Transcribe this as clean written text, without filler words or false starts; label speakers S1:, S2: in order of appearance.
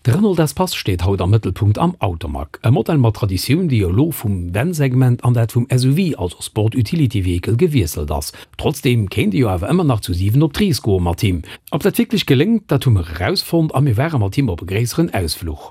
S1: De Renault Espace steet haut am Mëttelpunkt am Automag. E Modell mat Traditioun, déi elo vum Van-Segment an dat vum SUV, also Sport Utility Vehicle, gewiesselt ass. Trotzdeem kéint ee jo awer ëmmer nach zu 7 op d'Rees goe mat him. Ob dat wierklech geléngt, dat hu mer erausfonnt a mir ware mat him op e gréisseren Ausfluch.